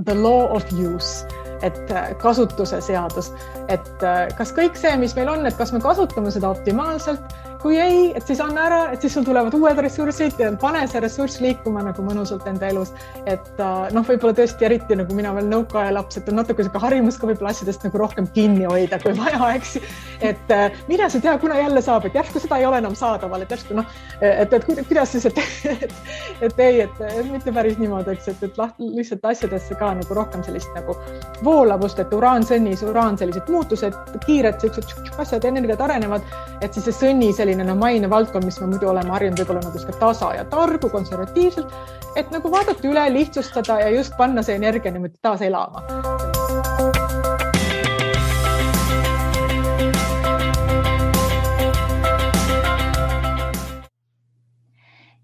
the law of use, et kasutuse seadus, et kas kõik see, mis meil on, et kas me kasutame seda optimaalselt, kui ei, et siis anna ära, et siis sul tulevad uued ressursid ja pane see ressurss liikuma nagu mõnusalt enda elus. Et võib-olla tõesti eriti nagu mina veel nõukaaja laps, et on natuke selline harjumus ka võib-olla asjadest nagu rohkem kinni hoida, kui vaja, eks. Et mida sa tea, kuna jälle saab, et järsku seda ei ole enam saadaval, et järsku et kuidas siis, et ei, et mitte päris niimoodi, eks, et lihtsalt asjadesse ka nagu rohkem sellist nagu voolavust, et uraan, sellised muutused, kiired sellised asjad, energiat arenevad, et siis see sõnni selline maine valdkond, mis me muidu oleme harjunud võib-olla nagu tasa ja targu, konservatiivselt, et nagu vaadata üle, lihtsustada ja just panna see energia niimoodi taas elama.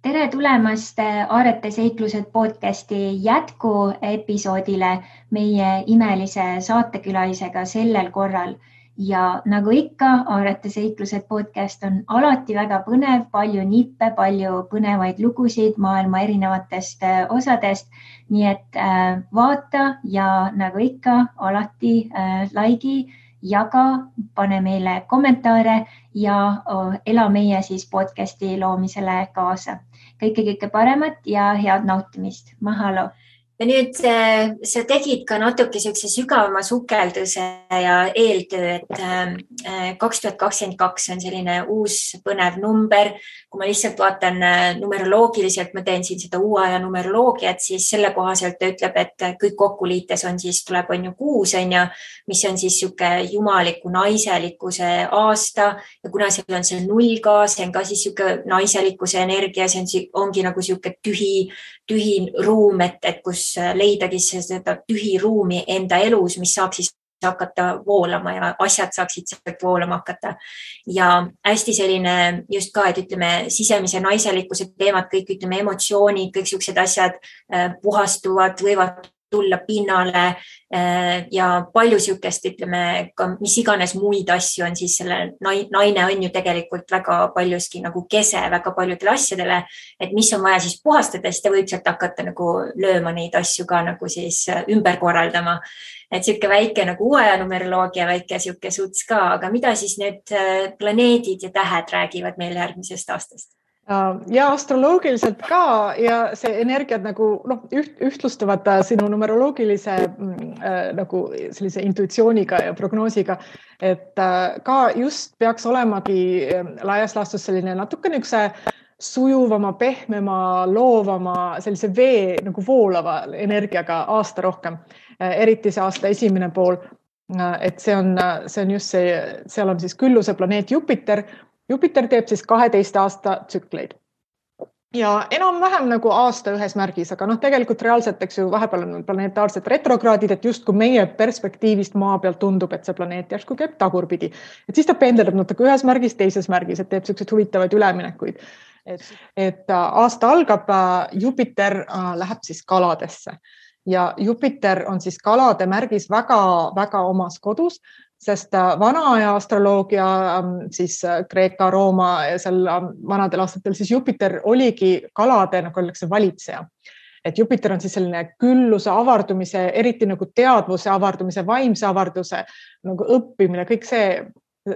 Tere tulemast Aarete seiklused podcasti jätku episoodile meie imelise saatekülalisega sellel korral. Ja nagu ikka, Aarete seiklused podcast on alati väga põnev, palju nippe, palju põnevaid lugusid maailma erinevatest osadest. Nii et vaata ja nagu ikka, alati laigi, jaga, pane meile kommentaare ja ela meie siis podcasti loomisele kaasa. Kõike paremat ja head nautimist. Mahalo! Ja nüüd sa tegid ka natuke sellise sügavama sukelduse ja eeltöö, et 2022 on selline uus põnev number. Kui ma lihtsalt vaatan numeroloogiliselt, ma teen siin seda uue aja numeroloogiat, siis selle kohaselt ta ütleb, et kõik kokku liites on siis, tuleb on ju 6, mis on siis siuke jumaliku naiselikkuse aasta ja kuna seal on see 0 ka, see on ka siis siuke naiselikkuse energia, see ongi nagu siuke tühi ruum, et kus leidagi seda tühi ruumi enda elus, mis saaks siis hakata voolama ja asjad saaksid sealt voolama hakata. Ja hästi selline just ka, et ütleme sisemise naiselikkuse teemad, kõik ütleme emotsioonid, kõik siuksed asjad puhastuvad, võivad tulla pinnale ja palju siukest, ütleme, mis iganes muid asju on siis selle naine on ju tegelikult väga paljuski nagu kese väga paljudele asjadele, et mis on vaja siis puhastada, siis ta võib sealt hakata nagu lööma neid asju ka nagu siis ümber korraldama. Et siuke väike nagu uue numeroloogia, väike siuke suts ka, aga mida siis need planeedid ja tähed räägivad meil järgmisest aastast? Ja astroloogiliselt ka ja see energiat nagu ühtlustuvad sinu numeroloogilise nagu sellise intuitsiooniga ja prognoosiga, et ka just peaks olemagi laias laastus selline natuke niukse sujuvama, pehmema, loovama, sellise vee nagu voolava energiaga aasta rohkem, eriti see aasta esimene pool, et see on just see, seal on siis külluse planeet Jupiter. Jupiter teeb siis 12 aasta tsükleid ja enam-vähem nagu aasta ühes märgis, aga tegelikult reaalselt, eks ju, vahepeal on planetaarsed retrokraadid, et just kui meie perspektiivist maa pealt tundub, et see planeet järsku käib tagurpidi, et siis ta pendeldab natuke ühes märgis, teises märgis, et teeb sellised huvitavaid üleminekuid. Et aasta algab, Jupiter läheb siis kaladesse ja Jupiter on siis kalade märgis väga omas kodus, sest vana aja astroloogia, siis Kreeka, Rooma ja seal vanadel aastatel, siis Jupiter oligi kalade nagu öeldakse valitseja. Et Jupiter on siis selline külluse avardumise, eriti nagu teadvuse avardumise, vaimse avarduse, nagu õppimine, kõik see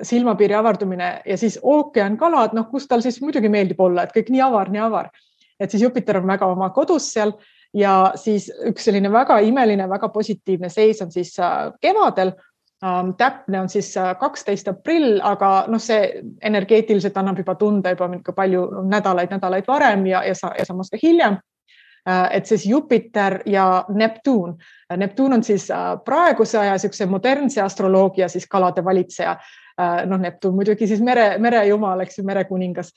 silmapiiri avardumine ja siis ookean kalad, kus tal siis muidugi meeldib olla, et kõik nii avar. Et siis Jupiter on väga oma kodus seal ja siis üks selline väga imeline, väga positiivne seis on siis kevadel. Täpne on siis 12 aprill, aga see energeetiliselt annab juba tunda juba palju nädalaid varem ja samas ka hiljem. Et siis Jupiter ja Neptuun. Neptuun on siis praeguse aja siukse modernse astroloogia siis kalade valitseja. Neptuun muidugi siis merejumal, eks ju, merekuningas.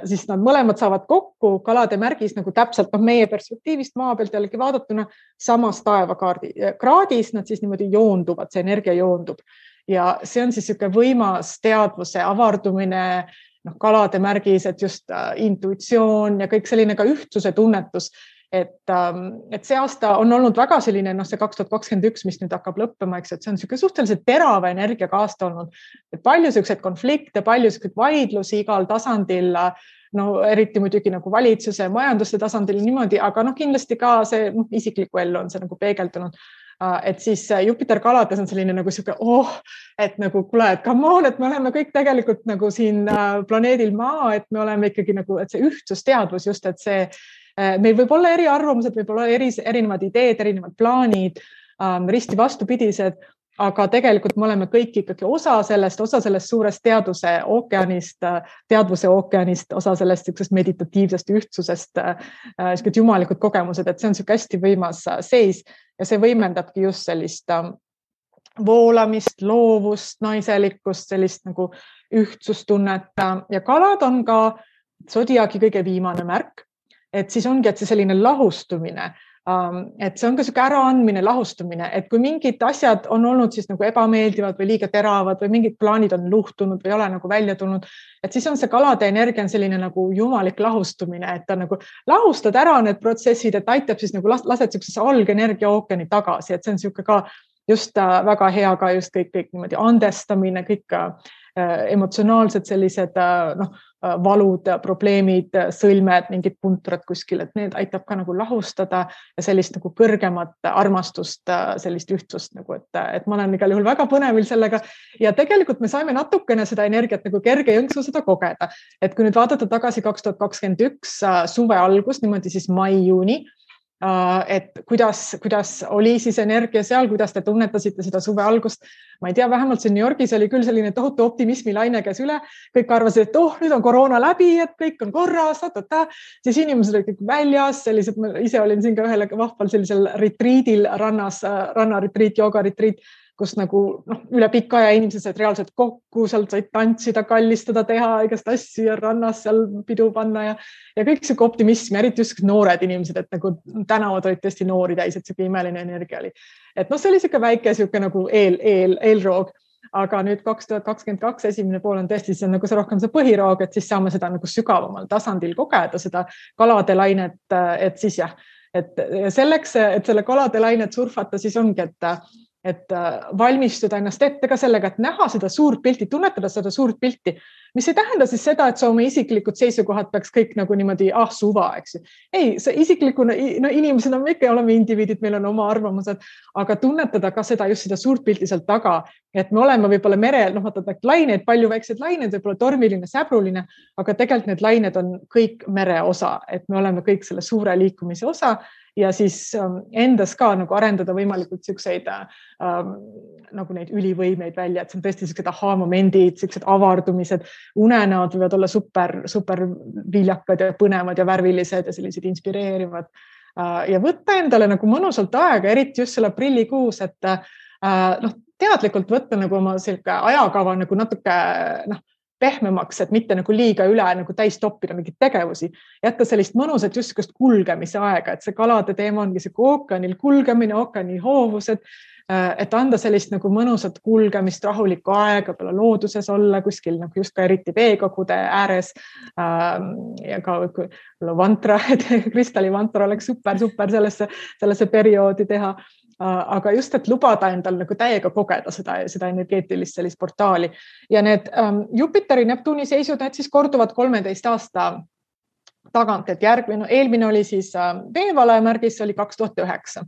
Siis nad mõlemad saavad kokku kalade märgis nagu täpselt meie perspektiivist maa pealt jällegi vaadatuna samas taevakraadis, nad siis niimoodi joonduvad, see energia joondub. Ja see on siis siuke võimas teadvuse avardumine, kalade märgis, et just intuitsioon ja kõik selline ka ühtsuse tunnetus. Et see aasta on olnud väga selline, see 2021, mis nüüd hakkab lõppema, eks, et see on siuke suhteliselt terava energiaga aasta olnud. Et palju siukseid konflikte, palju siukseid vaidlusi igal tasandil, no eriti muidugi nagu valitsuse, majanduse tasandil niimoodi, aga kindlasti ka see isikliku ellu on see nagu peegeldunud. Et siis Jupiter kalades on selline nagu siuke, et nagu kuule, et come on, et me oleme kõik tegelikult nagu siin planeedil Maa, et me oleme ikkagi nagu, et see ühtsusteadvus just, et see, meil võib olla eriarvamused, võib olla erinevad ideed, erinevad plaanid, risti vastupidised, aga tegelikult me oleme kõik ikkagi osa sellest suurest teadvuse ookeanist, osa sellest meditatiivsest ühtsusest, jumalikud kogemused, et see on siuke hästi võimas seis ja see võimendabki just sellist voolamist, loovust, naiselikkust, sellist nagu ühtsustunnet ja kalad on ka sodiaagi kõige viimane märk, et siis ongi, et see selline lahustumine, et see on ka siuke äraandmine, lahustumine, et kui mingid asjad on olnud siis nagu ebameeldivad või liiga teravad või mingid plaanid on luhtunud või ei ole nagu välja tulnud, et siis on see kalade energia on selline nagu jumalik lahustumine, et ta nagu lahustad ära need protsessid, et aitab siis nagu lased siuksesse algenergia ookeani tagasi, et see on siuke ka just väga hea ka just kõik niimoodi andestamine, kõik emotsionaalsed sellised valud, probleemid, sõlmed, mingid puntrad kuskil, et need aitab ka nagu lahustada ja sellist nagu kõrgemat armastust, sellist ühtsust nagu, et ma olen igal juhul väga põnevil sellega ja tegelikult me saime natukene seda energiat nagu kerge jõnksu seda kogeda, et kui nüüd vaadata tagasi 2021 suve algus, niimoodi siis mai-juuni, et kuidas oli siis energia seal, kuidas te tunnetasite seda suve algust. Ma ei tea, vähemalt siin New Yorgis oli küll selline tohutu optimismi laine käes üle. Kõik arvasid, et nüüd on koroona läbi, et kõik on korras, siis inimesed olid kõik väljas, sellised, ma ise olin siin ka ühel vahval sellisel retriidil rannas, rannaretriit, joogaretriit, kus nagu üle pika aja inimesed said reaalselt kokku, sealt said tantsida, kallistada, teha igast asju ja rannas seal pidu panna ja kõik siuke optimism, eriti just noored inimesed, et nagu tänavad olid tõesti noori täis, et siuke imeline energia oli. Et see oli siuke väike siuke nagu eelroog, aga nüüd 2022 esimene pool on tõesti, see on nagu see rohkem see põhiroog, et siis saame seda nagu sügavamal tasandil kogeda, seda kalade lainet, et siis jah, et selleks, et selle kalade lainet surfata, siis ongi, et valmistuda ennast ette ka sellega, et näha seda suurt pilti, tunnetada seda suurt pilti, mis ei tähenda siis seda, et sa oma isiklikud seisukohad peaks kõik nagu niimoodi suva, eks ju. Ei, see isiklikuna, inimesena me ikka oleme indiviidid, meil on oma arvamused, aga tunnetada ka seda, just seda suurt pilti sealt taga, et me oleme võib-olla merel, laineid, palju väikseid laineid, võib-olla tormiline, säbruline, aga tegelikult need lained on kõik mere osa, et me oleme kõik selle suure liikumise osa ja siis endas ka nagu arendada võimalikult siukseid nagu neid ülivõimeid välja, et see on tõesti siuksed aha-momendid, siuksed avardumised, unenäod võivad olla super viljakad ja põnevad ja värvilised ja sellised inspireerivad ja võtta endale nagu mõnusalt aega, eriti just selle aprillikuus, et teadlikult võtta nagu oma selline ajakava nagu natuke pehmemaks, et mitte nagu liiga üle nagu täis toppida mingeid tegevusi, jätta sellist mõnusat just kulgemise aega, et see kalade teema ongi see ookeanil kulgemine, ookeani hoovused, et anda sellist nagu mõnusat kulgemist, rahulikku aega, peale looduses olla kuskil nagu just ka eriti veekogude ääres ja ka vantra, kristallivantra oleks super sellesse perioodi teha. Aga just, et lubada endal nagu täiega kogeda seda energeetilist sellist portaali ja need Jupiteri Neptuuni seisud, need siis korduvad 13 aasta tagant, et eelmine oli siis veevalaja märgis, see oli 2009.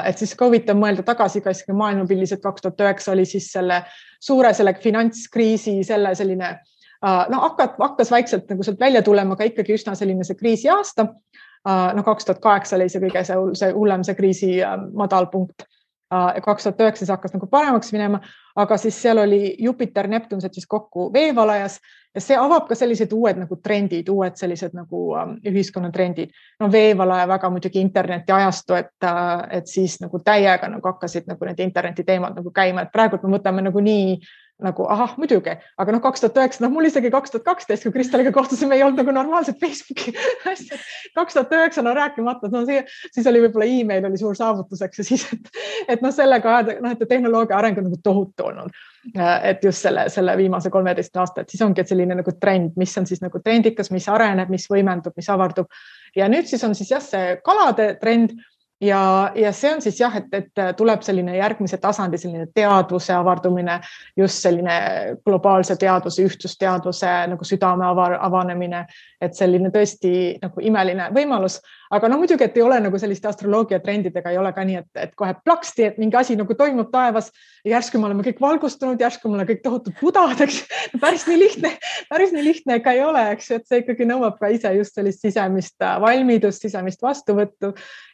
Et siis huvitav mõelda tagasi ka maailmapildis, et 2009 oli siis selle suure finantskriisi selline, hakkas vaikselt nagu sealt välja tulema, aga ikkagi üsna selline see kriisi aasta. 2008 oli see kõige see hullem see kriisi madal punkt. 2009 hakkas nagu paremaks minema, aga siis seal oli Jupiter, Neptun siis kokku veevalajas ja see avab ka sellised uued nagu trendid, uued sellised nagu ühiskonnatrendid. Veevalaja väga muidugi interneti ajastu, et siis nagu täiega nagu hakkasid nagu need interneti teemad nagu käima, et praegu me võtame nagu nii nagu muidugi, aga 2009, mul isegi 2012, kui Kristaliga kohtusime, ei olnud nagu normaalset Facebooki asja. 2009 rääkimata, siis oli võib-olla e-mail oli suur saavutuseks ja siis, et sellega et tehnoloogia areng on nagu tohutu olnud, et just selle viimase 13 aasta, et siis ongi selline nagu trend, mis on siis nagu trendikas, mis areneb, mis võimendub, mis avardub ja nüüd siis on siis see kalade trend ja see on siis et tuleb selline järgmise tasandi, selline teadvuse avardumine, just selline globaalse teadvuse, ühtsusteadvuse nagu südame avanemine et selline tõesti nagu imeline võimalus, aga no muidugi, et ei ole nagu selliste astroloogia trendidega, ei ole ka nii, et kohe plaksti, et mingi asi nagu toimub taevas ja järsku me oleme kõik valgustunud, järsku me oleme kõik tohutud budad, eks. Päris nii lihtne ka ei ole, eks, et see ikkagi nõuab ka ise just sellist sisemist valmidust, sisemist vastuvõttu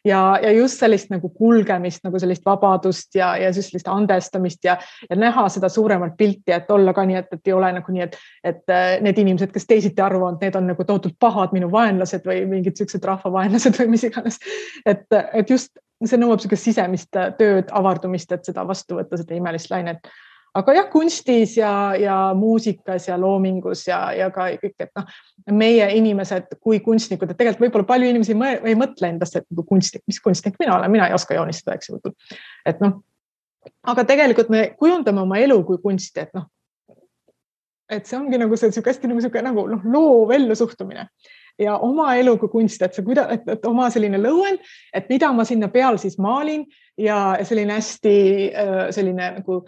ja just sellist nagu kulgemist, nagu sellist vabadust ja just sellist andestamist ja näha seda suuremat pilti, et olla ka nii, et ei ole nagu nii, et need inimesed, kes teisiti arvavad, need on nagu tohutult pahad minu vaenlased või mingid sellised rahvavaenlased või mis iganes. Et just see nõuab sellist sisemist tööd, avardumist, et seda vastu võtta, seda imelist lainet. Aga jah, kunstis ja muusikas ja loomingus ja ka kõik, et meie inimesed kui kunstnikud, et tegelikult võib-olla palju inimesi ei mõtle endast, et kunstnik, mis kunstnik mina olen, mina ei oska joonistada, eks ju. Et aga tegelikult me kujundame oma elu kui kunsti, et see ongi nagu see hästi nagu loov ellu suhtumine ja oma elu kui kunst, et oma selline lõuend, et mida ma sinna peal siis maalin ja selline hästi selline nagu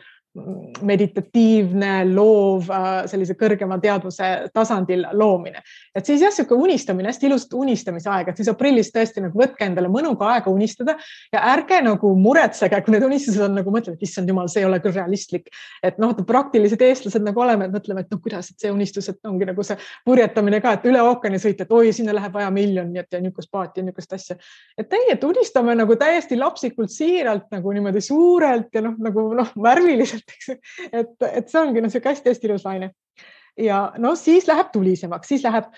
meditatiivne, loov, sellise kõrgema teadvuse tasandil loomine. Et siis jah, siuke unistamine, hästi ilust unistamise aeg, et siis aprillis tõesti nagu võtke endale mõnuga aega unistada ja ärge nagu muretsege, kui need unistused on nagu mõtlevad, et issand jumal, see ei ole küll realistlik. Et praktilised eestlased nagu oleme, et mõtleme, et kuidas, et see unistus, et ongi nagu see purjetamine ka, et üle ookeani sõita, et oi, sinna läheb vaja miljonit ja niukest paati ja niukest asja. Et unistame nagu täiesti lapsikult siiralt nagu niimoodi suurelt ja värviliselt. Et see ongi see hästi ilus laine. Ja siis läheb tulisemaks, siis läheb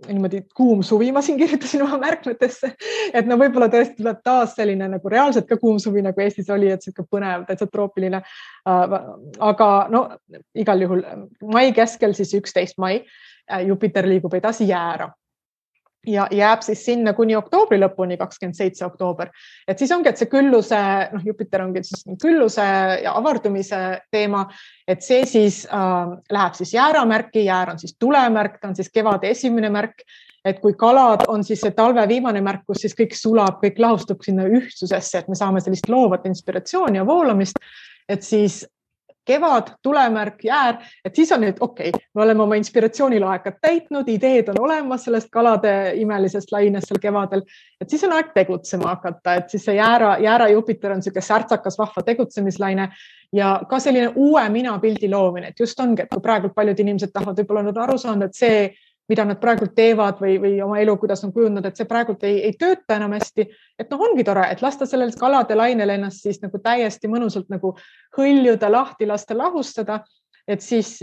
niimoodi kuum suvi, ma siin kirjutasin oma märkmetesse, et võib-olla tõesti tuleb taas selline nagu reaalselt ka kuum suvi, nagu Eestis oli, et siuke põnev, täitsa troopiline. Aga igal juhul mai keskel siis 11 mai Jupiter liigub edasi Jäära. Ja jääb siis sinna kuni oktoobri lõpuni, 27. oktoober. Et siis ongi, et see külluse, Jupiter ongi siis külluse ja avardumise teema, et see siis läheb siis jääramärki, jäär on siis tulemärk, ta on siis kevade esimene märk, et kui kalad on siis see talve viimane märk, kus siis kõik sulab, kõik lahustub sinna ühtsusesse, et me saame sellist loovat inspiratsiooni ja voolamist, et siis kevad, tulemärk, jäär, et siis on nüüd okei, me oleme oma inspiratsioonilaekad täitnud, ideed on olemas sellest kalade imelisest lainest seal kevadel, et siis on aeg tegutsema hakata, et siis see jäära Jupiter on selline särtsakas vahva tegutsemislaine ja ka selline uue minapildi loomine, et just ongi, et kui praegu paljud inimesed tahavad võib-olla nüüd aru saanud, et see, mida nad praegu teevad või oma elu, kuidas on kujundanud, et see praegu ei tööta enam hästi, et ongi tore, et lasta sellel kalade lainel ennast siis nagu täiesti mõnusalt nagu hõljuda, lahti lasta, lahustada, et siis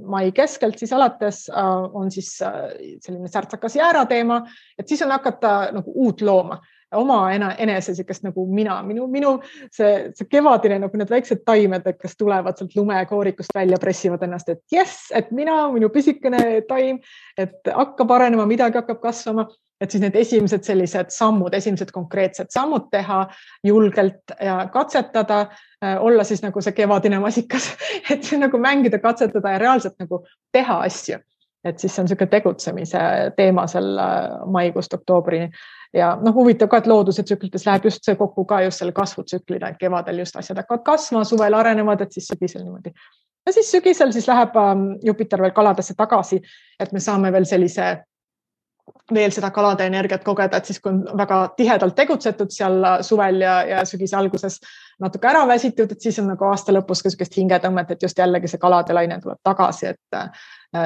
mai keskelt siis alates on siis selline särtsakas jäära teema, et siis on hakata nagu uut looma, oma enese sikest nagu minu see kevadine nagu need väiksed taimed, kes tulevad sealt lumekoorikust välja, pressivad ennast, et jess, et minu pisikene taim, et hakkab arenema, midagi hakkab kasvama, et siis need esimesed sellised sammud, esimesed konkreetsed sammud teha julgelt ja katsetada, olla siis nagu see kevadine masikas, et see nagu mängida, katsetada ja reaalselt nagu teha asju. Et siis see on selline tegutsemise teema seal maikuust oktoobrini. Ja huvitav ka, et looduse tsüklites läheb just see kokku ka just selle kasvutsüklina, et kevadel just asjad hakkavad kasvama, suvel arenevad, et siis sügisel niimoodi. Ja siis sügisel siis läheb Jupiter veel kaladesse tagasi, et me saame veel seda kalade energiat kogeda, et siis kui on väga tihedalt tegutsetud seal suvel ja sügise alguses natuke ära väsitud, et siis on nagu aasta lõpus ka sellist hingetõmmet, et just jällegi see kalade laine tuleb tagasi, et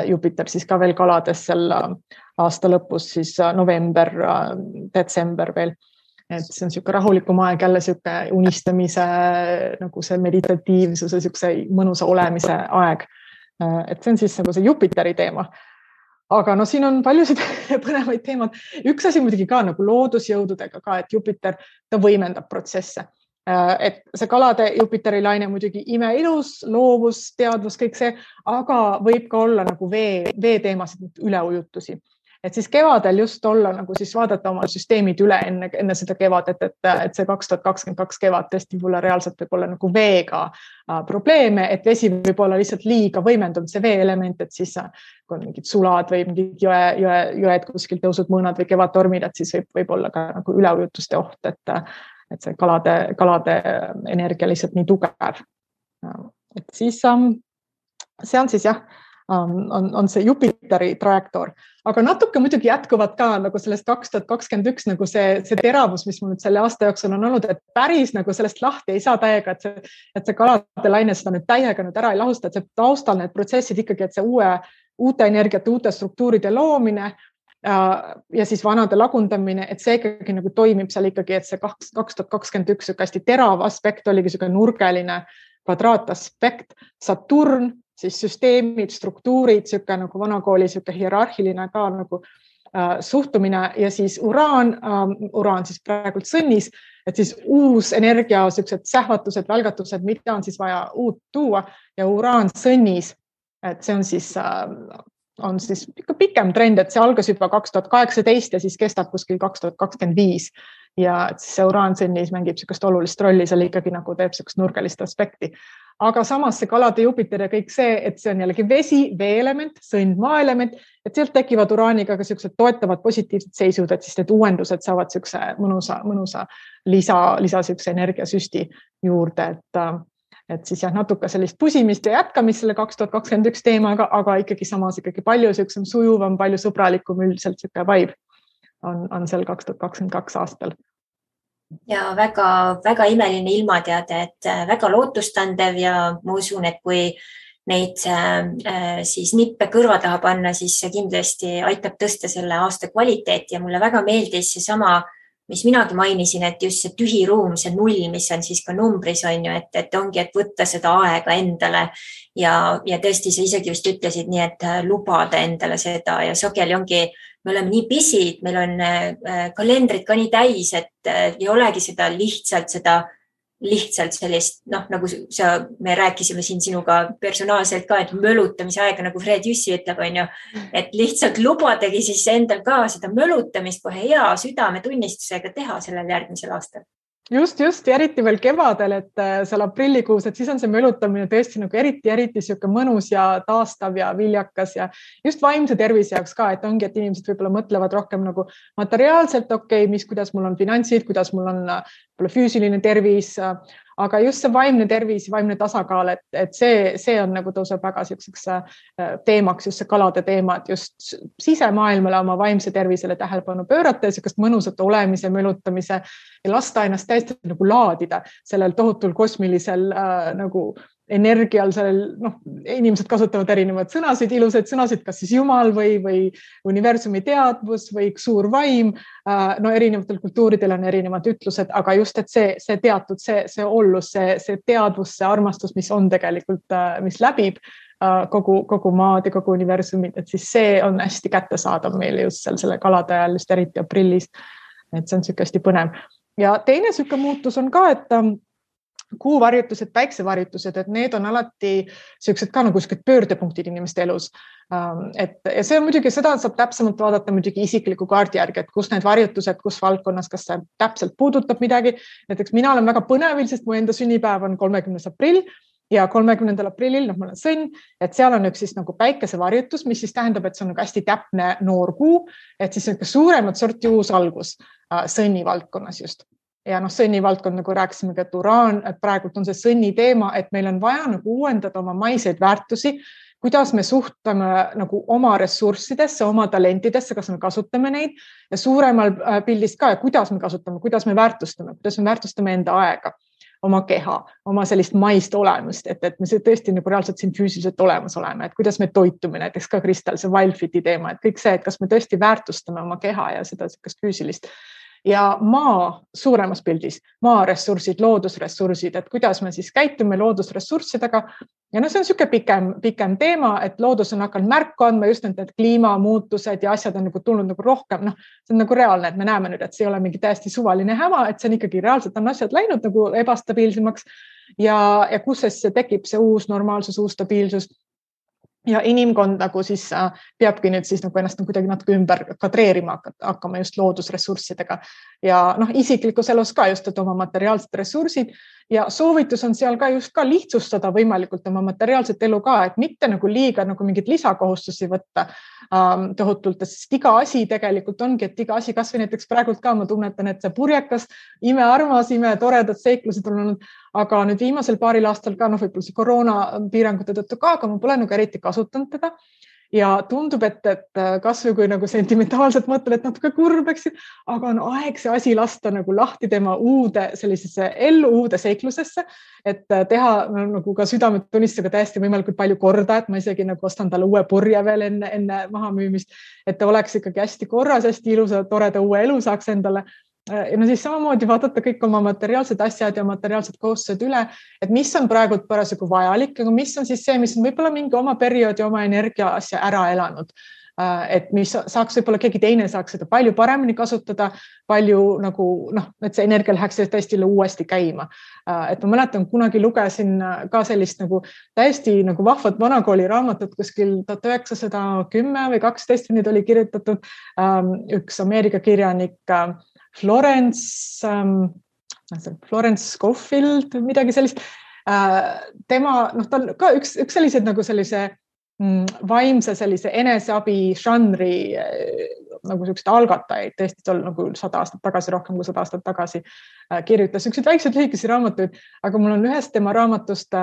Jupiter siis ka veel kalades seal aasta lõpus, siis november, detsember veel. Et see on selline rahulikum aeg, jälle selline unistamise, nagu see meditatiivsuse, selline mõnusa olemise aeg. Et see on siis nagu see Jupiteri teema. Aga siin on paljusid põnevaid teemad. Üks asi muidugi ka nagu loodusjõududega ka, et Jupiter, ta võimendab protsesse. Et see kalade Jupiteri laine muidugi imeilus, loovus, teadvus, kõik see, aga võib ka olla nagu vee teemasid üleujutusi. Et siis kevadel just olla nagu siis vaadata oma süsteemid üle enne seda kevadet, et see 2022 kevad tõesti võib-olla reaalselt võib olla nagu veega probleeme, et vesi võib olla lihtsalt liiga võimendunud see veeelement, et siis kui on mingid sulad või mingid jõed kuskil tõusud mõõnad või kevadtormid, et siis võib olla ka nagu üleujutuste oht, et see kalade energia lihtsalt nii tugev. Et siis see on siis jah, on see Jupiteri trajektoor, aga natuke muidugi jätkuvad ka nagu sellest 2021 nagu see teravus, mis mul nüüd selle aasta jooksul on olnud, et päris nagu sellest lahti ei saa täiega, et see kalade laine seda nüüd täiega nüüd ära ei lahusta, et see taustal need protsessid ikkagi, et see uute energiate, uute struktuuride loomine ja siis vanade lagundamine, et see ikkagi nagu toimib seal ikkagi, et see 2021 hästi terav aspekt oligi selline nurgeline kvadraataspekt, Saturn, siis süsteemid, struktuurid, selline nagu vanakooli selline hierarhiline ka nagu suhtumine ja siis uraan siis praegult sõnnis, et siis uus energia, sellised sähvatused, välgatused, mida on siis vaja uut tuua ja uraan sõnnis, et see on siis ikka pikem trend, et see algas juba 2018 ja siis kestab kuskil 2025 ja siis see uraan sõnnis mängib sellist olulist rolli, seal ikkagi nagu teeb sellist nurgelist aspekti. Aga samas see kalade Jupiter ja kõik see, et see on jällegi vesi, veeelement, sõnd, maaelement, et sealt tekivad uraaniga ka sellised toetavad positiivsed seisud, et siis need uuendused saavad sellise mõnusa lisa sellise energiasüsti juurde, et siis jah, natuke sellist pusimist ja jätkamist selle 2021 teemaga, aga ikkagi samas ikkagi palju sellisem sujuvam, palju sõbralikum üldiselt selline vibe on seal 2022 aastal. Ja väga imeline ilmateade, et väga lootustandev ja ma usun, et kui neid siis nippe kõrva taha panna, siis see kindlasti aitab tõsta selle aasta kvaliteeti ja mulle väga meeldis see sama, mis minagi mainisin, et just see tühi ruum, see null, mis on siis ka numbris on ju, et ongi, et võtta seda aega endale ja tõesti sa isegi vist ütlesid nii, et lubada endale seda ja sageli ongi, me oleme nii pisid, meil on kalendrid ka nii täis, et ei olegi seda lihtsalt sellist, nagu me rääkisime siin sinuga personaalselt ka, et mölutamise aega, nagu Fred Jüssi ütleb, on ju, et lihtsalt lubadagi siis endal ka seda mölutamist kohe hea südametunnistusega teha sellel järgmisel aastal. Just, ja eriti veel kevadel, et seal aprillikuus, et siis on see mölutamine tõesti nagu eriti siuke mõnus ja taastav ja viljakas ja just vaimse tervise jaoks ka, et ongi, et inimesed võib-olla mõtlevad rohkem nagu materiaalselt, kuidas mul on finantsid, kuidas mul on füüsiline tervis, aga just see vaimne tervis, vaimne tasakaal, et see on nagu tõuseb väga selliseks teemaks, just see kalade teema, et just sisemaailmale oma vaimse tervisele tähelepanu pöörata ja sellist mõnusat olemise, mölutamise ja lasta ennast täiesti nagu laadida sellel tohutul kosmilisel nagu energial, inimesed kasutavad erinevad sõnasid, ilusaid sõnasid, kas siis Jumal või universumi teadvus või suur vaim. Erinevatel kultuuridel on erinevad ütlused, aga just, et see teatud, see ollus, see teadvus, see armastus, mis on tegelikult, mis läbib kogu maad ja kogu universumit, et siis see on hästi kättesaadav meile just selle kalade ajal, just eriti aprillis. Et see on hästi põnev. Ja teine selline muutus on ka, et kuuvarjutused, päiksevarjutused, et need on alati sellised ka nagu pöördepunktid inimeste elus. Ja see on muidugi, seda saab täpsemalt vaadata muidugi isikliku kaardi järgi, et kus need varjutused, kus valdkonnas, kas see täpselt puudutab midagi. Näiteks mina olen väga põnevil, sest mu enda sünnipäev on 30. aprill ja 30. aprillil, ma olen sõnn, et seal on üks siis nagu päikesevarjutus, mis siis tähendab, et see on nagu hästi täpne noor kuu, et siis suuremat sorti uus algus sõnni valdkonnas just. Ja sõnni valdkond, nagu rääkisimegi, et uraan, et praegult on see sõnni teema, et meil on vaja nagu uuendada oma maiseid väärtusi, kuidas me suhtame nagu oma ressurssidesse, oma talentidesse, kas me kasutame neid ja suuremal pildist ka, kuidas me kasutame, kuidas me väärtustame enda aega, oma keha, oma sellist maist olemust, et me tõesti nagu reaalselt siin füüsiliselt olemas oleme, et kuidas me toitume, näiteks ka Kristel, see Wildfiti teema, et kõik see, et kas me tõesti väärtustame oma keha ja seda füüsilist. Ja maa suuremas pildis, maa ressursid, loodusressursid, et kuidas me siis käitume loodusressurssidega. Ja see on selline pikem teema, et loodus on hakanud märku andma, just need kliimamuutused ja asjad on nagu tulnud nagu rohkem. See on nagu reaalne, et me näeme nüüd, et see ei ole mingi täiesti suvaline häma, et see on ikkagi reaalselt on asjad läinud nagu ebastabiilsemaks ja kus see tekib see uus normaalsus, uus stabiilsus. Ja inimkond nagu siis peabki nüüd siis nagu ennast kuidagi natuke ümber kadreerima hakkama just loodusressurssidega ja isiklikus elus ka just, et oma materiaalsed ressursid ja soovitus on seal ka just ka lihtsustada võimalikult oma materiaalset elu ka, et mitte nagu liiga nagu mingit lisakohustusi võtta tohutult, sest iga asi tegelikult ongi, et iga asi, kas või näiteks praegult ka ma tunnetan, et see purjekas, imearmas, imetoredad seiklused on olnud, aga nüüd viimasel paaril aastal ka, võib-olla see koroona piirangute tõttu ka, aga ma pole nagu eriti kasutanud teda. Ja tundub, et kas või kui nagu sentimentaalselt mõtlen, et natuke kurb, aga on aeg see asi lasta nagu lahti tema uude sellisesse ellu, uude seiklusesse, et teha nagu ka südametunnistusega täiesti võimalikult palju korda, et ma isegi nagu ostan talle uue purje veel enne mahamüümist, et ta oleks ikkagi hästi korras, hästi ilusa, toreda uue elu saaks endale. Ja no siis samamoodi vaadata kõik oma materiaalsed asjad ja materiaalsed kohustused üle, et mis on praegu parasjagu vajalik, aga mis on siis see, mis on võib-olla mingi oma perioodi, oma energia asja ära elanud. Et mis saaks võib-olla keegi teine saaks seda palju paremini kasutada, palju nagu, et see energia läheks täiesti uuesti käima. Et ma mäletan, kunagi lugesin ka sellist nagu täiesti nagu vahvat vanakooli raamatut kuskil 1910 või 12 nüüd oli kirjutatud üks Ameerika kirjanik Florence Scofield, midagi sellist. Tema, tal ka üks sellised nagu sellise vaimse sellise eneseabi žanri nagu sellised algatajaid, tõesti tol nagu 100 aastat tagasi, rohkem kui 100 aastat tagasi kirjutas sellised väiksed lühikesi raamatuid, aga mul on ühest tema raamatust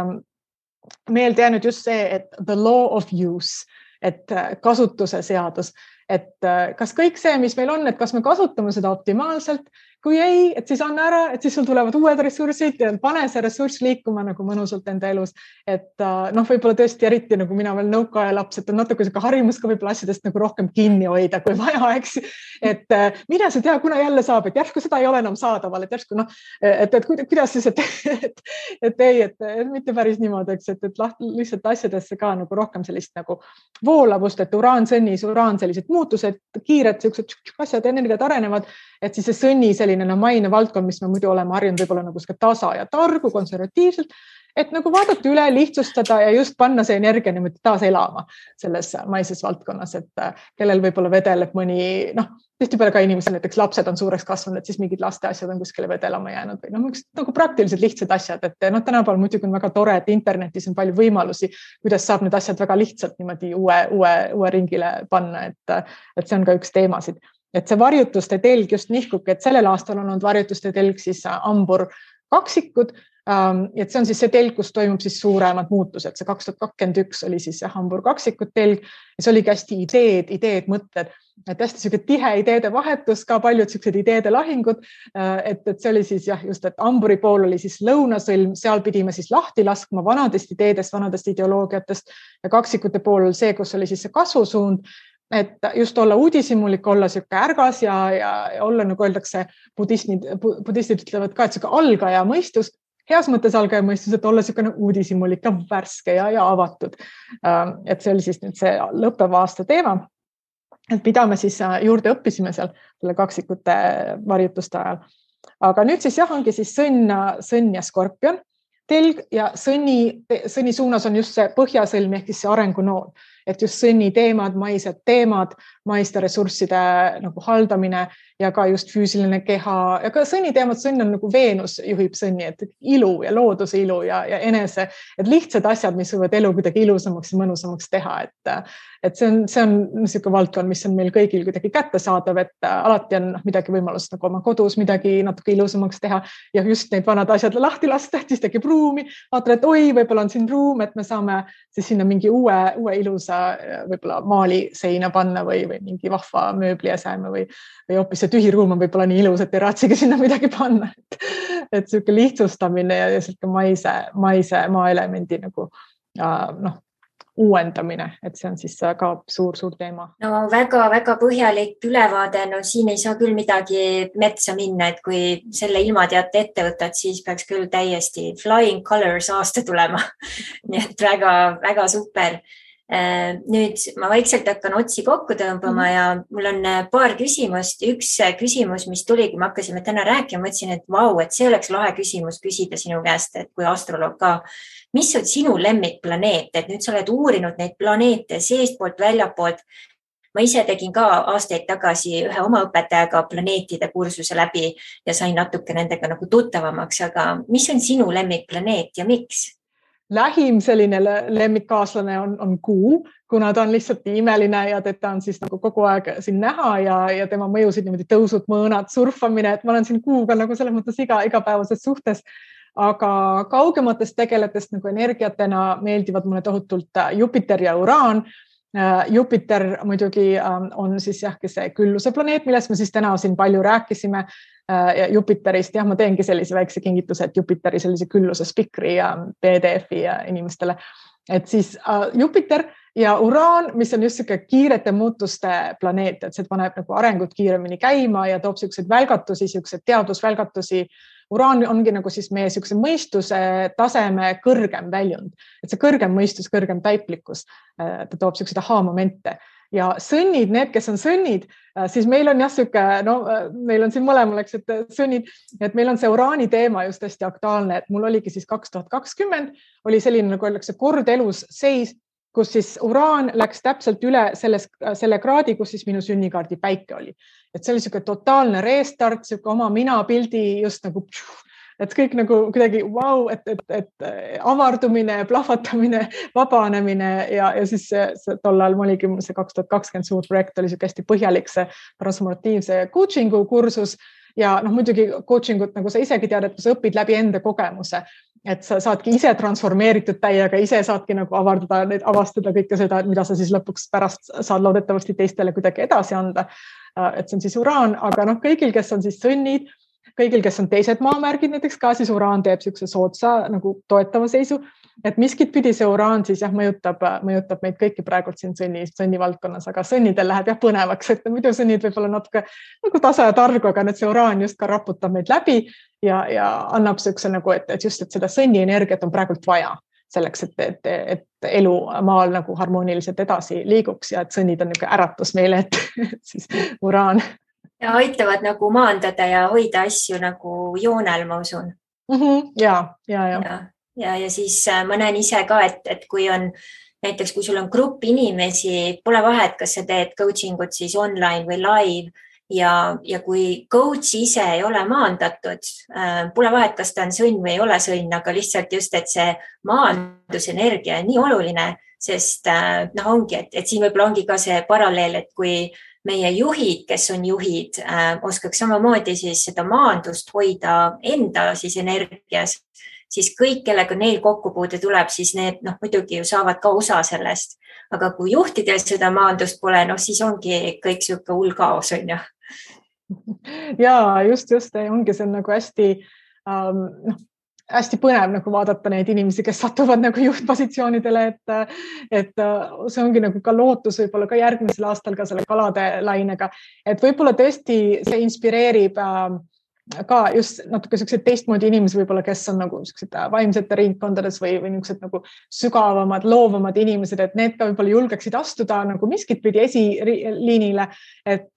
meelde jäänud just see, et the law of use, et kasutuse seadus. Et kas kõik see, mis meil on, et kas me kasutame seda optimaalselt, kui ei, et siis anna ära, et siis sul tulevad uued ressursid ja pane see ressurss liikuma nagu mõnusalt enda elus. Et võib-olla tõesti eriti nagu mina veel nõukaaja laps, et on natuke harimus ka võib-olla asjadest nagu rohkem kinni hoida, kui vaja, eks. Et mida sa tea, kuna jälle saab, et järsku seda ei ole enam saadaval, et järsku et kuidas siis, et mitte päris niimoodi, eks, et lihtsalt asjadesse ka nagu rohkem sellist nagu voolavust, et uraansõnnis, sellised muutused, kiired sellised asjad, energiat arenevad, et siis see sõnni selline maine valdkond, mis me muidu oleme harjunud võib-olla nagu tasa ja targu, konservatiivselt, et nagu vaadata üle, lihtsustada ja just panna see energia niimoodi taas elama selles maises valdkonnas, et kellel võib-olla vedeleb mõni, tihtipeale ka inimesel näiteks lapsed on suureks kasvanud, et siis mingid laste asjad on kuskile vedelama jäänud või nagu praktiliselt lihtsad asjad, et tänapäeval muidugi on väga tore, et internetis on palju võimalusi, kuidas saab need asjad väga lihtsalt niimoodi uue ringile panna, et see on ka üks teemasid. Et see varjutuste telg just nihkugi, et sellel aastal on olnud varjutuste telg siis Hambur kaksikud, et see on siis see telg, kus toimub siis suuremad muutused. See 2021 oli siis see Hambur kaksikud telg ja see oligi hästi ideed, mõtted, et hästi selline tihe ideede vahetus, ka paljud sellised ideede lahingud, et see oli siis just, et Hamburi pool oli siis lõunasõlm, seal pidime siis lahti laskma vanadest ideedest, vanadest ideoloogiatest ja kaksikute pool see, kus oli siis see kasvusuund, et just olla uudishimulik, olla siuke ärgas ja olla, nagu öeldakse, budistid ütlevad ka, et siuke algaja mõistus, heas mõttes algaja mõistus, et olla siuke uudishimulik ja värske ja avatud. Et see oli siis nüüd see lõppeva aasta teema, et mida me siis juurde õppisime seal selle kaksikute varjutuste ajal. Aga nüüd siis ongi siis sõnn ja skorpion telg ja sõnni suunas on just see põhjasõlm ehk siis see arengunool. Et just sõnni teemad, maiste ressursside nagu haldamine ja ka just füüsiline keha ja ka sõnni teemad, sõnn on nagu Veenus juhib sõnni, et ilu ja looduse ilu ja enese, et lihtsad asjad, mis võivad elu kuidagi ilusamaks ja mõnusamaks teha, et see on niisugune valdkond, mis on meil kõigil kuidagi kättesaadav, et alati on midagi võimalust nagu oma kodus midagi natuke ilusamaks teha ja just neid vanad asjad lahti lasta, siis tekib ruumi, vaatad, et oi, võib-olla on siin ruum, et me saame siis sinna mingi uue ilusa võib-olla maali seina panna või mingi vahva mööbli aseme või hoopis see tühi ruum on võib-olla nii ilus, et ei raatsigi sinna midagi panna. Et selline lihtsustamine ja selline maise maaelemendi nagu uuendamine, et see on siis ka suur teema. No väga põhjalik ülevaade, no siin ei saa küll midagi metsa minna, et kui selle ilmateate ette võtad, siis peaks küll täiesti flying colors aasta tulema. Nii et väga super. Nüüd ma vaikselt hakkan otsi kokku tõmbama ja mul on paar küsimust. Üks küsimus, mis tuli, kui me hakkasime täna rääkima, mõtlesin, et vau, et see oleks lahe küsimus küsida sinu käest, et kui astroloog ka. Mis on sinu lemmikplaneet, et nüüd sa oled uurinud neid planeete seestpoolt, väljapoolt. ma ise tegin ka aastaid tagasi ühe oma õpetajaga planeetide kursuse läbi ja sain natuke nendega nagu tuttavamaks, aga mis on sinu lemmikplaneet ja miks? Lähim selline lemmikkaaslane on Kuu, kuna ta on lihtsalt nii imeline ja teda on siis nagu kogu aeg siin näha ja tema mõjusid niimoodi tõusud, mõõnad, surfamine, et ma olen siin Kuuga nagu selles mõttes igapäevases suhtes, aga kaugematest tegeletest nagu energiatena meeldivad mulle tohutult Jupiter ja Uraan. Jupiter muidugi on siis see külluse planeet, millest me siis täna siin palju rääkisime. Ja Jupiterist, ma teengi sellise väikse kingituse, et Jupiteri sellise külluse spikri ja PDF-i ja inimestele. Et siis Jupiter ja Uraan, mis on just selline kiirete muutuste planeet, et see paneb nagu arengut kiiremini käima ja toob selliseid välgatusi, selliseid teadusvälgatusi. Uraan ongi nagu siis meie selline mõistuse taseme kõrgem väljund, et see kõrgem mõistus, kõrgem taiplikkus, ta toob selliseid aha-momente. Ja sõnnid, need, kes on sõnnid, siis meil on meil on siin mõlemal, et sõnnid, et meil on see Uraani teema just hästi aktuaalne, et mul oligi siis 2020 oli selline, nagu öeldakse, kord elus seis, kus siis Uraan läks täpselt üle selle kraadi, kus siis minu sünnikaardi päike oli. Et see oli selline totaalne restart, selline oma minapildi just nagu, et kõik nagu kuidagi vau, et avardumine, plahvatamine, vabanemine ja siis see tollal oligi see 2020 suur projekt oli selline hästi põhjalik see transformatiivse coachingu kursus ja muidugi coachingut, nagu sa isegi tead, et sa õpid läbi enda kogemuse, et sa saadki ise transformeeritud täiega, ise saadki nagu avastada kõike seda, mida sa siis lõpuks pärast saad loodetavasti teistele kuidagi edasi anda. Et see on siis Uraan, aga kõigil, kes on siis sõnnid, kõigil, kes on teised maamärgid, näiteks ka siis Uraan teeb selline sootsa nagu toetava seisu, et miskit pidi see Uraan siis mõjutab meid kõiki praegult siin sõnni valdkonnas, aga sõnnidel läheb põnevaks, et muidu sõnnid võib-olla natuke nagu tasa ja targu, aga see Uraan just ka raputab meid läbi ja annab selline nagu, et just, et seda sõnni energiat on praegult vaja selleks, et elu maal nagu harmooniliselt edasi liiguks ja et sõnnid on niisugune äratus meile, et siis Uraan. Ja aitavad nagu maandada ja hoida asju nagu joonel, ma usun. Ja siis ma näen ise ka, et kui on näiteks, kui sul on grupp inimesi, pole vahet, kas sa teed coaching ut siis online või live ja kui coach ise ei ole maandatud, pole vahet, kas ta on sõnn või ei ole sõnn, aga lihtsalt just, et see maandusenergia on nii oluline, sest ongi, et siin võib-olla ongi ka see paralleel, et kui meie juhid, kes on juhid, oskaks samamoodi siis seda maandust hoida enda siis energias, siis kõik, kellega neil kokkupuude tuleb, siis need muidugi ju saavad ka osa sellest. Aga kui juhtidel seda maandust pole, siis ongi kõik selline hull kaos, on ju. Ja just, ongi see nagu hästi põnev nagu vaadata neid inimesi, kes satuvad nagu juhtpositsioonidele, et see ongi nagu ka lootus võib-olla ka järgmisel aastal ka selle kalade lainega, et võib-olla tõesti see inspireerib ka just natuke sellised teistmoodi inimesi võib-olla, kes on nagu sellised vaimsete ringkondades või niisugused nagu sügavamad, loovamad inimesed, et need ka võib-olla julgeksid astuda nagu miskit pidi esiliinile, et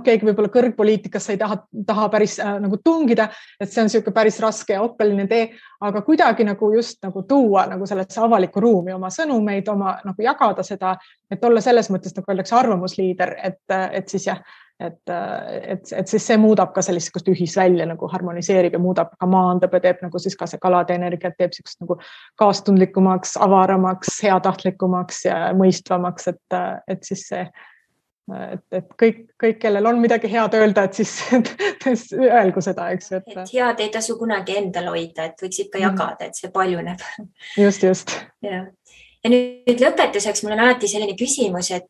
keegi võib-olla kõrgpoliitikas ei taha päris nagu tungida, et see on selline päris raske ja oppeline tee, aga kuidagi nagu just nagu tuua nagu sellesse avalikku ruumi oma sõnumeid, oma nagu jagada seda, et olla selles mõttes nagu öeldakse arvamusliider, et siis et siis see muudab ka sellist ühisvälja nagu harmoniseerib ja muudab ka maandab ja teeb nagu siis ka see kalade energiat teeb sellist nagu kaastundlikumaks, avaramaks, heatahtlikumaks ja mõistvamaks, et siis see, et kõik, kellel on midagi head öelda, et siis öelgu seda, eks. Et head ei tasu kunagi endal hoida, et võiks ikka jagada, et see paljuneb. Just. Ja nüüd lõpetuseks mul on alati selline küsimus, et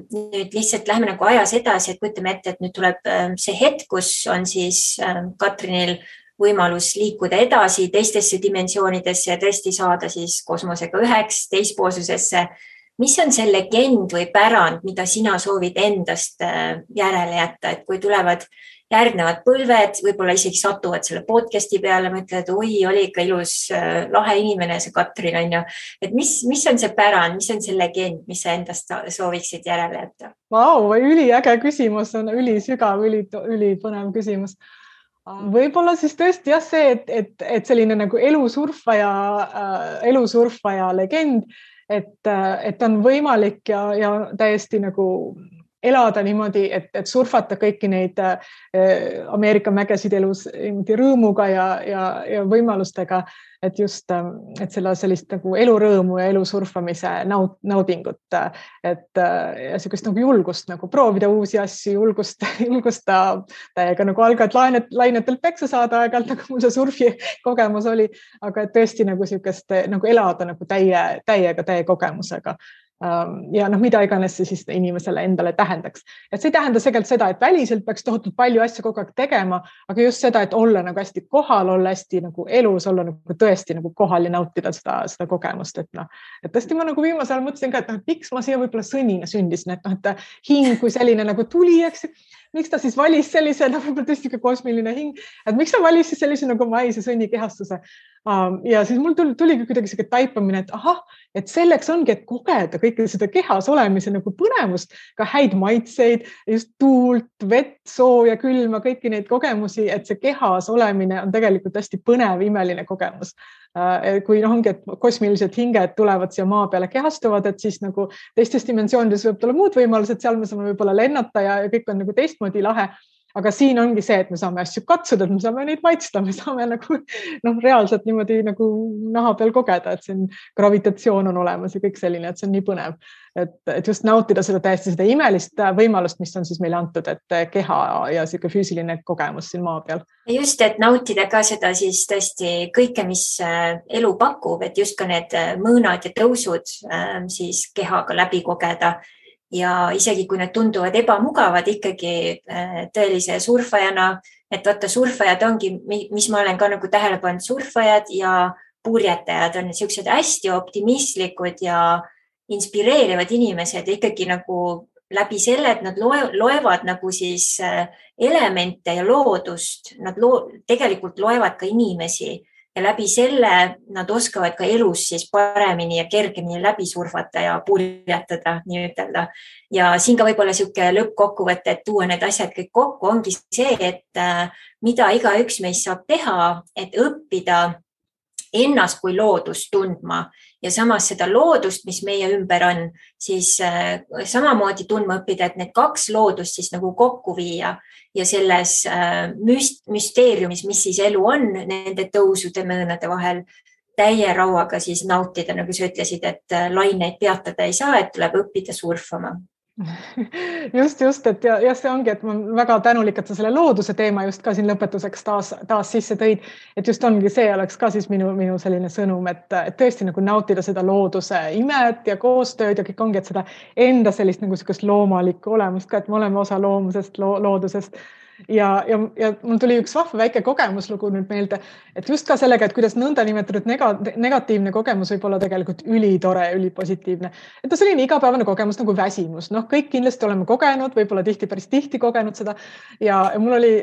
nüüd lihtsalt lähme nagu ajas edasi, et kujutame ette, et nüüd tuleb see hetk, kus on siis Katrinil võimalus liikuda edasi teistesse dimensioonidesse ja tõesti saada siis kosmosega üheks teispoolsusesse. Mis on see legend või pärand, mida sina soovid endast järele jätta, et kui tulevad järgnevad põlved, võib-olla isegi satuvad selle podcasti peale, mõtlevad, oi, oli ikka ilus, lahe inimene see Katrin on ju. Et mis on see pärand, mis on see legend, mis sa endast sooviksid järele jätta? Vau, üliäge küsimus, on ülisügav, ülipõnev küsimus. Võib-olla siis tõesti see, et selline nagu elusurfaja legend, et on võimalik ja täiesti nagu elada niimoodi, et surfata kõiki neid Ameerika mägesid elus rõõmuga ja võimalustega, et just, et sellist nagu elurõõmu ja elu surfamise naudingut, et ja sellist nagu julgust nagu proovida uusi asju, julgusta täiega nagu algad lainetelt peksa saada aeg-ajalt, nagu mul see surfi kogemus oli, aga et tõesti nagu sellist nagu elada nagu täie kogemusega. Ja mida iganes see siis inimesele endale tähendaks. Et see ei tähenda tegelikult seda, et väliselt peaks tohutult palju asju kogu aeg tegema, aga just seda, et olla nagu hästi kohal, olla hästi nagu elus, olla nagu tõesti nagu kohal ja nautida seda kogemust. Et tõesti ma nagu viimasel ajal mõtlesin ka, et miks ma siia võib-olla sõnina sündisin, et hing kui selline nagu tuli, eks, miks ta siis valis sellise, võib-olla tõesti ka kosmiline hing, et miks ta valis siis sellise nagu maise sõnnikehastuse. Ja siis mul tuligi kuidagi selline taipamine, et ahah, et selleks ongi, et kogeda kõike seda kehas olemise nagu põnevust, ka häid maitseid, just tuult, vett, sooja, külma, kõiki neid kogemusi, et see kehas olemine on tegelikult hästi põnev, imeline kogemus. Kui ongi, et kosmilised hinged tulevad siia maa peale kehastuvad, et siis nagu teistes dimensioonides võib olla muud võimalused, seal me saame võib-olla lennata ja kõik on nagu teistmoodi lahe. Aga siin ongi see, et me saame asju katsuda, et me saame neid maitsta, me saame nagu reaalselt niimoodi nagu naha peal kogeda, et siin gravitatsioon on olemas ja kõik selline, et see on nii põnev. Et just nautida seda täiesti seda imelist võimalust, mis on siis meile antud, et keha ja selline füüsiline kogemus siin maa peal. Just, et nautida ka seda siis tõesti kõike, mis elu pakub, et just ka need mõõnad ja tõusud siis kehaga läbi kogeda. Ja isegi kui need tunduvad ebamugavad ikkagi tõelise surfajana, et vaata surfajad ongi, mis ma olen ka nagu tähele pannud, surfajad ja purjetajad on sellised hästi optimistlikud ja inspireerivad inimesed ikkagi nagu läbi selle, et nad loevad nagu siis elemente ja loodust, nad tegelikult loevad ka inimesi. Ja läbi selle nad oskavad ka elus siis paremini ja kergemini läbi surfata ja purjetada, nii ütelda. Ja siin ka võib-olla selline lõppkokkuvõte, et tuua need asjad kõik kokku, ongi see, et mida igaüks meist saab teha, et õppida ennast kui loodust tundma ja samas seda loodust, mis meie ümber on, siis samamoodi tundma õppida, et need kaks loodust siis nagu kokku viia ja selles müsteeriumis, mis siis elu on nende tõusude mõõnade vahel, täie rauaga siis nautida, nagu sa ütlesid, et laineid peatada ei saa, et tuleb õppida surfama. Just, et ja see ongi, et ma väga tänulik, et sa selle looduse teema just ka siin lõpetuseks taas sisse tõid, et just ongi see oleks ka siis minu selline sõnum, et tõesti nagu nautida seda looduse imet ja koostööd ja kõik ongi, et seda enda sellist nagu sellist loomalikku olemust ka, et me oleme osa loomusest, loodusest. Ja mul tuli üks vahva väike kogemuslugu nüüd meelde, et just ka sellega, et kuidas nõnda nimetatud negatiivne kogemus võib olla tegelikult ülitore, ülipositiivne. Et ta selline igapäevane kogemus nagu väsimus. Kõik kindlasti oleme kogenud, võib-olla päris tihti kogenud seda. Ja mul oli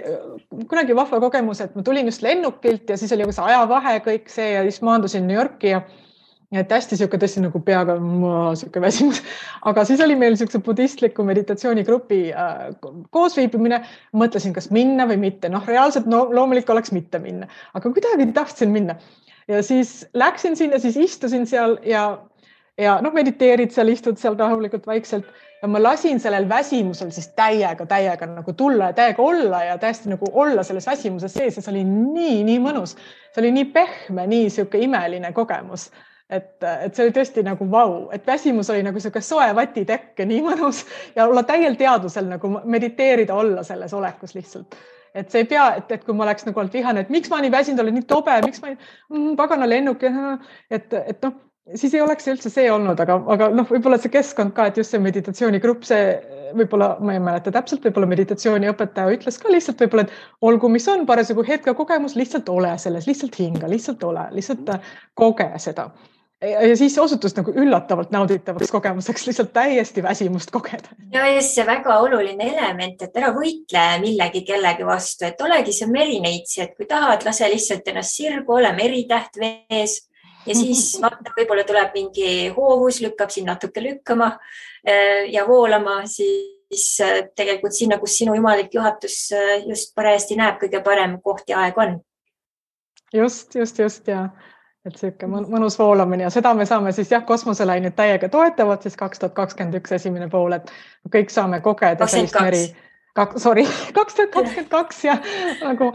kunagi vahva kogemus, et ma tulin just lennukilt ja siis oli see ajavahe kõik see ja siis maandusin New Yorki ja et hästi tõesti nagu peaga siuke väsimus, aga siis oli meil siukse budistliku meditatsioonigrupi koosviibimine, mõtlesin, kas minna või mitte. Reaalselt loomulik oleks mitte minna, aga kuidagi tahtsin minna ja siis läksin sinna, siis istusin seal ja mediteerid seal, istud seal rahulikult vaikselt ja ma lasin sellel väsimusel siis täiega nagu tulla ja täiega olla ja täiesti nagu olla selles väsimuses sees ja see oli nii mõnus, see oli nii pehme, nii siuke imeline kogemus. Et see oli tõesti nagu vau, et väsimus oli nagu siuke soe vatitekk ja nii mõnus ja olla täiel teadusel nagu mediteerida, olla selles olekus lihtsalt. Et see ei pea, et kui ma oleks nagu olnud vihane, et miks ma nii väsinud olen, nii tobe, miks ma pagana lennuk, et siis ei oleks üldse see olnud, aga võib-olla see keskkond ka, et just see meditatsioonigrupp, see võib-olla, ma ei mäleta täpselt, võib-olla meditatsiooniõpetaja ütles ka lihtsalt võib-olla, et olgu, mis on parasjagu hetke kogemus, lihtsalt ole selles, lihtsalt hinga, lihtsalt ole, lihtsalt koge seda. Ja siis osutus nagu üllatavalt nauditavaks kogemuseks, lihtsalt täiesti väsimust kogeda. Ja just see väga oluline element, et ära võitle millegi kellegi vastu, et olegi see merineitsi, et kui tahad, lase lihtsalt ennast sirgu, ole meritäht vees ja siis vaata, võib-olla tuleb mingi hoovus, lükkab siin natuke lükkama ja voolama, siis tegelikult sinna, kus sinu jumalik juhatus just parajasti näeb, kõige parem koht ja aeg on. Just ja et siuke mõnus voolamine ja seda me saame siis kosmoselained täiega toetavad siis 2021 esimene pool, et kõik saame kogeda sellist meri. 2022 ja nagu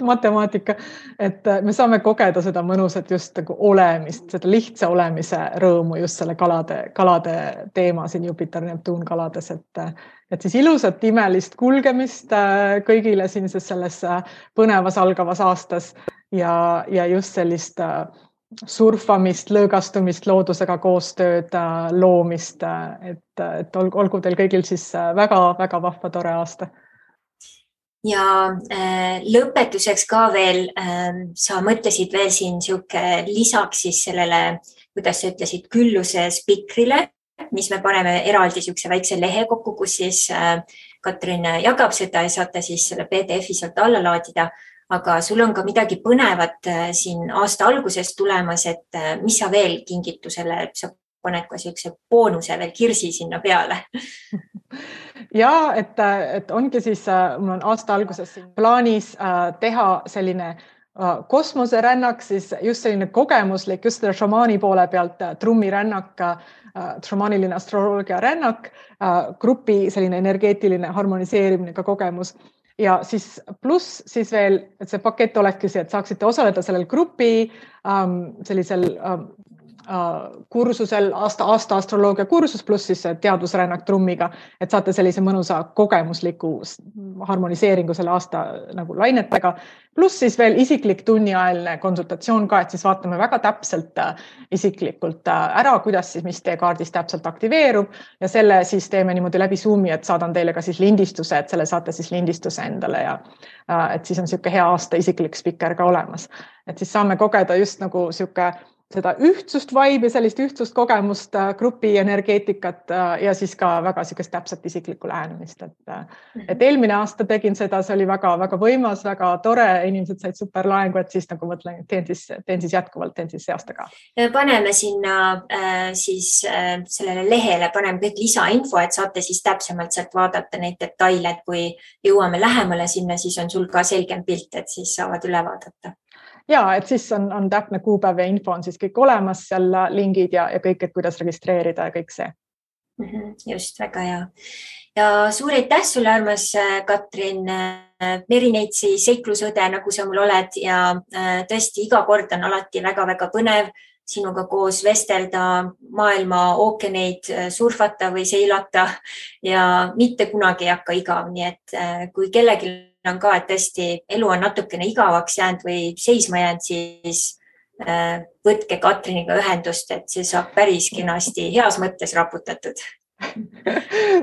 matemaatika, et me saame kogeda seda mõnusat just nagu olemist, seda lihtsa olemise rõõmu just selle kalade teema siin Jupiter, Neptuun kalades, et siis ilusat imelist kulgemist kõigile siin selles põnevas algavas aastas ja just sellist surfamist, lõõgastumist, loodusega koostööd, loomist, et olgu teil kõigil siis väga-väga vahva tore aasta. Ja lõpetuseks ka veel, sa mõtlesid veel siin siuke lisaks siis sellele, kuidas sa ütlesid, külluse spikrile, mis me paneme eraldi siukse väikse lehe kokku, kus siis Katrin jagab seda ja saate siis selle PDF-i sealt alla laadida. Aga sul on ka midagi põnevat siin aasta alguses tulemas, et mis sa veel kingitusele, sa paned ka siukse boonuse veel kirsi sinna peale. Ja, et ongi siis, mul on aasta alguses siin plaanis teha selline kosmoserännak, siis just selline kogemuslik, just selle šamaani poole pealt trummirännak, šamaaniline astroloogia rännak, grupi selline energeetiline harmoniseerimine ka kogemus. Ja siis pluss siis veel, et see pakett olekski see, et saaksite osaleda sellel grupi sellisel kursusel, aasta astroloogia kursus pluss siis teadusrännak trummiga, et saate sellise mõnusa kogemusliku harmoniseeringu selle aasta nagu lainetega. Pluss siis veel isiklik tunniajaline konsultatsioon ka, et siis vaatame väga täpselt isiklikult ära, kuidas siis mis teie kaardis täpselt aktiveerub ja selle siis teeme niimoodi läbi Zoomi, et saadan teile ka siis lindistuse, et selle saate siis lindistuse endale ja et siis on siuke hea aasta isiklik spikker ka olemas. Et siis saame kogeda just nagu siuke seda ühtsust vibe ja sellist ühtsust kogemust, grupi energeetikat ja siis ka väga siukest täpselt isiklikku lähenemist. Et eelmine aasta tegin seda, see oli väga-väga võimas, väga tore, inimesed said super laengu, et siis nagu mõtlen, teen siis jätkuvalt, teen siis see aasta ka. Paneme sinna siis sellele lehele, paneme kõik lisainfo, et saate siis täpsemalt sealt vaadata neid detaile, et kui jõuame lähemale sinna, siis on sul ka selgem pilt, et siis saavad üle vaadata. Ja, et siis on täpne kuupäev ja info on siis kõik olemas, seal lingid ja kõik, et kuidas registreerida ja kõik see. Just, väga hea. Ja suur aitäh sulle, armas Katrin, Merineitsi seiklusõde, nagu sa mul oled ja tõesti iga kord on alati väga-väga põnev sinuga koos vestelda, maailma ookeaneid surfata või seilata ja mitte kunagi ei hakka igav, nii et kui kellelgi on ka, et tõesti elu on natukene igavaks jäänud või seisma jäänud, siis võtke Katriniga ühendust, et see saab päris kenasti heas mõttes raputatud.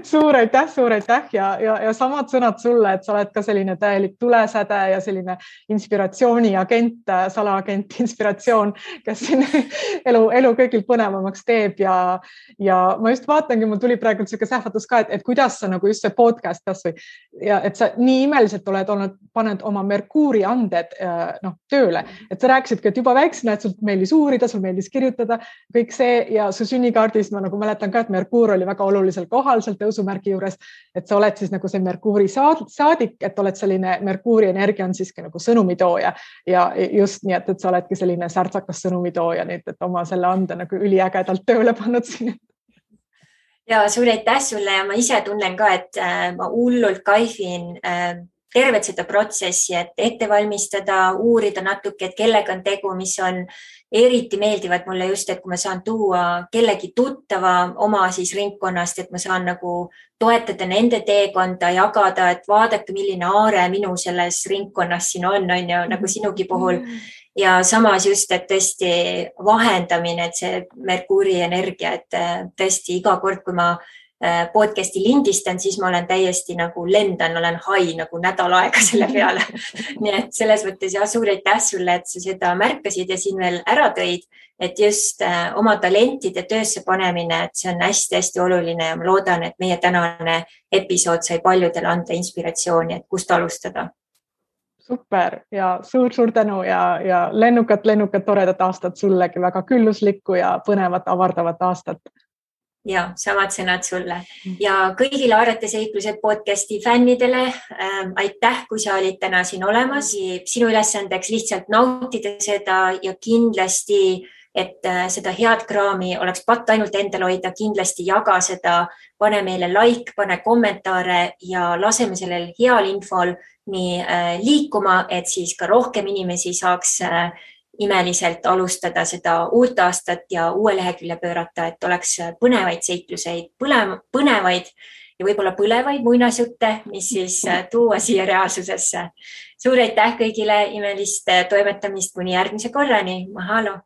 Suur aitäh ja samad sõnad sulle, et sa oled ka selline täielik tulesäde ja selline inspiratsiooniagent, salaagent, inspiratsioon, kes siin elu kõigil põnevamaks teeb ja ma just vaatangi, mul tuli praegu selline sähvatus ka, et kuidas sa nagu just see podcast kasvõi ja et sa nii imeliselt oled olnud, paned oma Merkuuri anded tööle, et sa rääkisidki, et juba väiksena, et sul meeldis uurida, sul meeldis kirjutada, kõik see ja su sünnikaardis ma nagu mäletan ka, et Merkuur oli väga olulisel kohal seal tõusumärgi juures, et sa oled siis nagu see Merkuuri saadik, et oled selline Merkuuri energia on siiski nagu sõnumitooja ja just nii, et sa oledki selline särtsakas sõnumitooja nüüd, et oma selle ande nagu üliägedalt tööle pannud siin. Ja suur aitäh sulle ja ma ise tunnen ka, et ma hullult kaifin tervet seda protsessi, et ette valmistada, uurida natuke, et kellega on tegu, mis on eriti meeldivad mulle just, et kui ma saan tuua kellegi tuttava oma siis ringkonnast, et ma saan nagu toetada nende teekonda, jagada, et vaadake, milline aare minu selles ringkonnas siin on ju, nagu sinugi puhul. Ja samas just, et tõesti vahendamine, et see Merkuuri energia, et tõesti iga kord, kui ma podcasti lindistan, siis ma olen täiesti nagu lendan, olen hai nagu nädal aega selle peale. Nii et selles mõttes ja suur aitäh sulle, et sa seda märkasid ja siin veel ära tõid, et just oma talentide töösse panemine, et see on hästi-hästi oluline ja ma loodan, et meie tänane episood sai paljudele anda inspiratsiooni, et kust alustada. Super ja suur tänu ja lennukat toredat aastat sullegi, väga külluslikku ja põnevat, avardavat aastat. Ja samad sõnad sulle ja kõigile Aarete seiklused podcasti fännidele. Aitäh, kui sa olid täna siin olemas. Sinu ülesandeks lihtsalt nautida seda ja kindlasti, et seda head kraami oleks patt ainult endal hoida, kindlasti jaga seda, pane meile like, pane kommentaare ja laseme sellel heal infol nii liikuma, et siis ka rohkem inimesi saaks imeliselt alustada seda uut aastat ja uue lehekülje pöörata, et oleks põnevaid seikluseid, põnevaid ja võib-olla põlevaid muinasjutte, mis siis tuua siia reaalsusesse. Suur aitäh kõigile, imelist toimetamist kuni järgmise korrani. Mahalo!